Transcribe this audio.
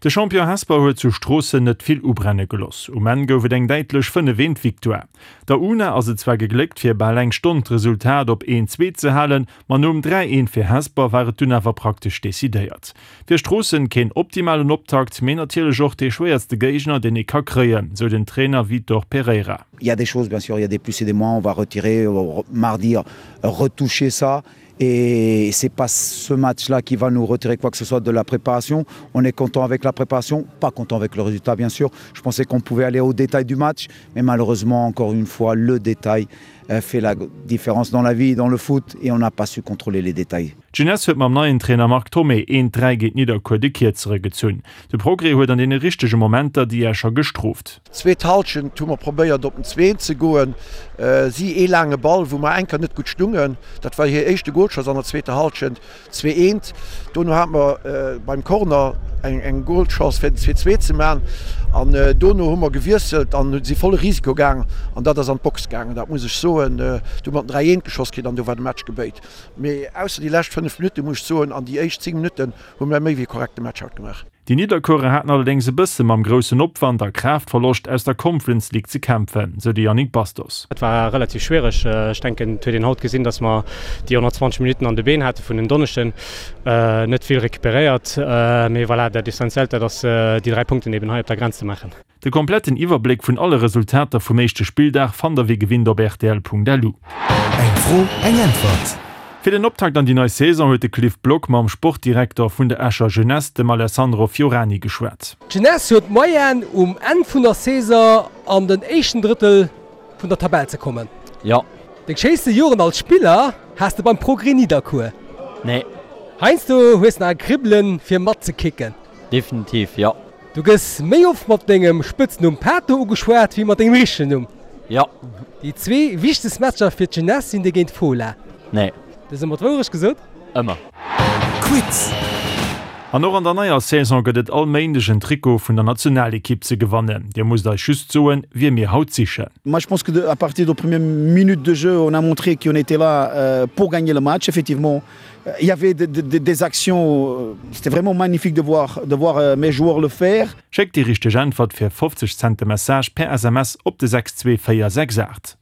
De Champion Hesper huet zu Stroossen net vill ubrenne geloss. Um Enn gouf et eng däitlech 5 eent Victoire. Der una ass et zwar gegléckt fir bal eng Stonn d'Resultat op 1 2 ze halen, ma nom 3 eent fir Hesper war et dunn awer praktesch decidéiert. Fir Stroossen keen optimalen Optakt, mee natierlech och dee schwéierste Géigner deen ee ka kréien, sou den Trainer Vitor Pereira. Il y a des choses bien sûr, il y a des plus et des moins, on va retirer mardi retoucher ça Et c'est pas ce match-là qui va nous retirer quoi que ce soit de la préparation. On est content avec la préparation, pas content avec le résultat bien sûr. Je pensais qu'on pouvait aller au détail du match, mais malheureusement encore une fois le détail euh, fait la différence dans la vie, dans le foot et on n'a pas su contrôler les détails. D'Jeunesse huet mam neien Trainer Marc Thomé een 3 géint Nidderkuer de Kierzere gezunn. De Progrès huet an deene richtege Momenter déi Escher gestrooft. Zweet Halschent hu mer probéiert op den Zween ze goen. Si ee laange Ball wou mer enker net gutt stungen. Dat war hir éischte Goalchance an der zweeter Halschent. 2 eent. Dono hate mer beim Corner eng Goalchance fir den 2 2 ze man an dono hu mer gewiesselt an si volle Risiko gaang an dat ass an d'Box gaangen. Dat muss ech soen. Du hu mer den 3 eent geschoss kritt an do war de Match gebéit. Mee ausser déi lescht 5 Minutten muss ech soen an déi éischt 10 Minutten hu mer méi wéi korrekte Match haut gemaach. Déi Nidderkuerer haten allerdéngs e bësse mam groussen Opwand a Kraaftverloscht aus der Conference League ze kämpfen, sou de Yannick Bastos. Et war relativ schwiereg. Ech denken, et huet een haut gesinn, datt mer déi 120 Minutten an de Been hate vun en Donneschden. Net vill recuperéiert, mee voilà, dat Essentiellt, dat ass déi 3 Punkten eben hei op der Grenz ze maachen. De kompletten Iwwerbléck vun alle Resultater vum éischte Spilldag fannt der wéi gewinnt op rtl.lu. Eng Fro, eng Äntwert! Fir den Optakt an déi nei Saison huet de Cliff Block mam Sportdirekter vun der Escher Jeunesse, dem Alessandro Fiorani, geschwat. D'Jeunesse huet d'Moyenne um Enn vun der Saison an den éischten Drëttel vun der Tabell ze kommen. Jo. Deng schéinste Joren als Spiller has de beim Progrès Nidderkuer? Nee. Heiansdo hues nach e Kribbelen fir matzekicken? Definitiv, jo. Du gëss méi oft mat dengem Spëtznumm Pato ugeschwat wéi mat dengem richtegen Numm. Jo. Déi zwee wichtegst Matcher fir d'Jeunesse sinn déi géint Fola. Nee. Du hues ëmmer d'Wourecht gesot? Ëmmer. Quiz. An och an der neier Saison gëtt et all Méindeg en Trikot vun der Nationalekipp ze gewannen. Dir musst eis just soen, wie mir haut sichen. Moi je pense que à partir de première minute de jeu, on a montré qu'on était là pour gagner le match effectivement. Il y avait des actions, c'était vraiment magnifique de voir, de voir mes joueurs le faire. Schéckt déi richteg Äntwert fir 50 Cent de Message per SMS op de 62468.